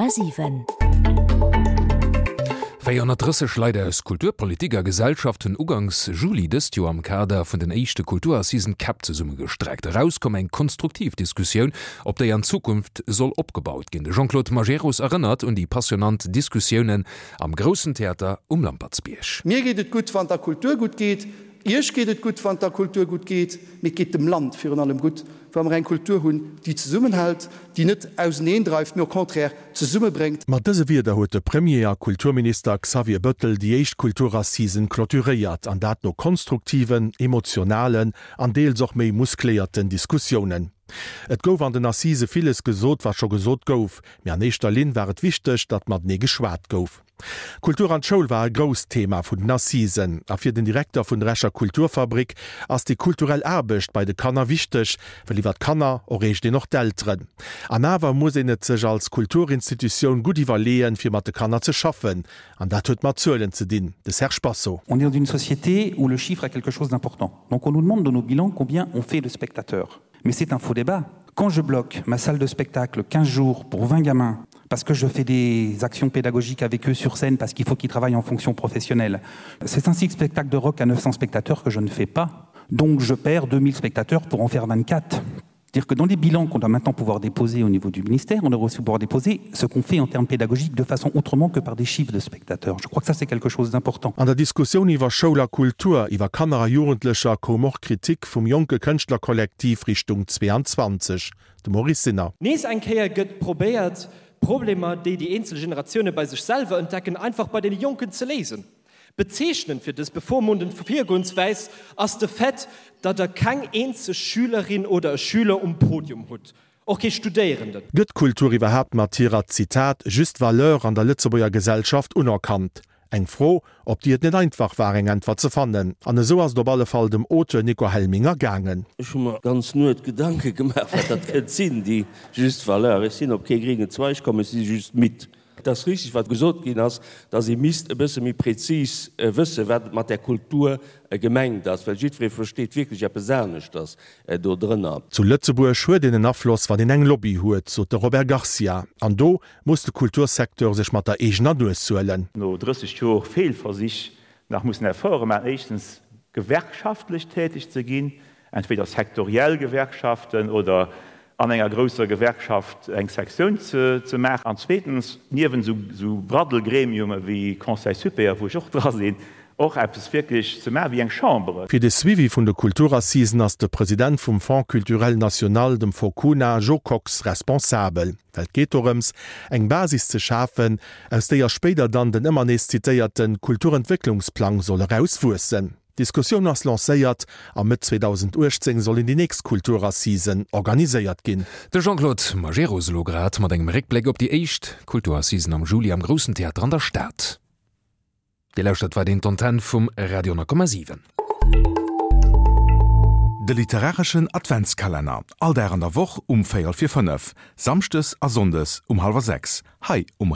100,7. 430 Leit aus Kultur, Politik a Gesellschaft hunn uganks Juli dëst Joer am Kader vun den éischte Kulturassisen d'Käpp zesummegestreckt. Erauskomm eng konstruktiv Diskussioun, op déi an Zukunft soll opgebaut ginn. De Jean-Claude Majerus erënnert un déi passionant Diskussiounen am Groussen Theater um Lampertsbierg. Mir geet et gutt, wann der Kultur gutt geet. Iech geet et gutt, wann et der Kultur gutt geet, mee et geet dem Land virun allem gutt, wa mer eng Kultur hunn, déi zesummenhält, déi net auseneendreift, mee au contraire zesummebréngt. Mat dëse Wierder huet de Premier a Kulturminister Xavier Bëttel déi éischt Kulturassisen clôturéiert, an dat no konstruktiven, emotionalen an deels och méi muskléierten Diskussiounen. Et gouf an den Assisë villes gesot, wat scho gesot gouf, mee an éischter Linn war et wichteg, datt matenee geschwat gouf. Kultur an d'Schoul war e grousst Thema vun den Assisen. A fir den Direkter vun der Escher Kulturfabrik ass déi kulturell Aarbecht bei de Kanner wichteg, well iwwer d'Kanner erreecht een och d'Elteren. An awer muss een et sech als Kulturinstitutioun gutt iwwerleeën, fir mat de Kanner ze schaffen. An dat huet mat Zuelen ze dinn. De Serge Basso. On est dans une société où le chiffre est quelque chose d'important. Donc on nous demande dans nos bilans combien on fait de spectateurs. Mais c'est un faux débat. Quand je bloque ma salle de spectacle 15 jours pour 20 gamins, parce que je fais des actions pédagogiques avec eux sur scène parce qu'il faut qu'ils travaillent en fonction professionnelle. C'est ainsi que spectacle de rock à 900 spectateurs que je ne fais pas. Donc je perds 2000 spectateurs pour en faire 24. Dire que dans les bilans qu'on doit maintenant pouvoir déposer au niveau du ministère, on devrait aussi pouvoir déposer ce qu'on fait en termes pédagogiques de façon autrement que par des chiffres de spectateurs. Je crois que ça c'est quelque chose d'important. An der Diskussioun iwwer Schoul a Kultur, iwwer Kanner a Jugendlecher koum och Kritik vum jonke Kënschtlerkollektiv Richtung 22. De Maurice Sinner. Nees eng Kéier gëtt probéiert, Problemer, déi déi eenzel Generatioune bei sech selwer entdecken, einfach bei deene Jonken ze léisen. Bezeechnend fir dës bevormundend Virgoenswäis ass de Fait, datt der keng eenzeg Schülerin oder e Schüler um Podium hutt, och kee Studéierenden. Gëtt d'Kultur iwwerhaapt mat hirer, Zitat, juste valeur an der Lëtzebuerger Gesellschaft unerkannt? Eng Fro, op déi et net einfach war, eng Äntwert ze fannen. An esou ass et op alle Fall dem Auteur Nico Helminger gaangen. Ech hu mer d'ganz Nuet Gedanke gemaach, wat dat kënnt sinn, déi juste valeur. Ech sinn op kee gréngen Zweig komm, ech si just midd. Et ass richtig, wat gesot ginn ass, dass ee misst e bësse méi prezis wëssen, wat et mat där Kultur gemengt ass, well jiddweree versteet wierklech eppes aneschters dodrënner. Zu Lëtzebuerg huet een en Afloss, wann een eng Lobby huet, sot de Robert Garcia. An do muss de Kultursecteur sech mat der eegener Nues suelen. No 30 Jor Feelversich nach mussen Efforte maachen, éischtens gewerkschaftlech täteg ze ginn, entweder sektoriell Gewerkschaften oder an enger grousser Gewerkschaft eng Sektioun ze maachen, an zweetens niewent esou Braddelgremiume wéi Conseil supérieur, wou ech och dra sinn, och eppes wierklech ze maachen wéi eng Chambre. Fir de Suivi vun de Kulturassisen ass de President vum Fonds culturel national, dem Focuna, Jo Kox, responsabel. Well et geet dorëms, eng Basis ze schafen, aus déier spéider dann den ëmmer nees zitéierte Kulturentwécklungsplang soll erauswuessen. D'Diskussioun ass lancéiert a Mëtt 2018 sollen déi nächst Kulturassisen organiséiert ginn. De Jean-Claude Majerus elo grad mat engem Réckbléck op déi éischt Kulturassisen am Juli am Groussen Theater an der Stad. Dir lauschtert weiderhin d'Antenn vum Radio 10,7. De literareschen Adventskalenner, all Dag an der Woch um véierel vir 5, samschdes a sonndes um hallwer 6, hei um.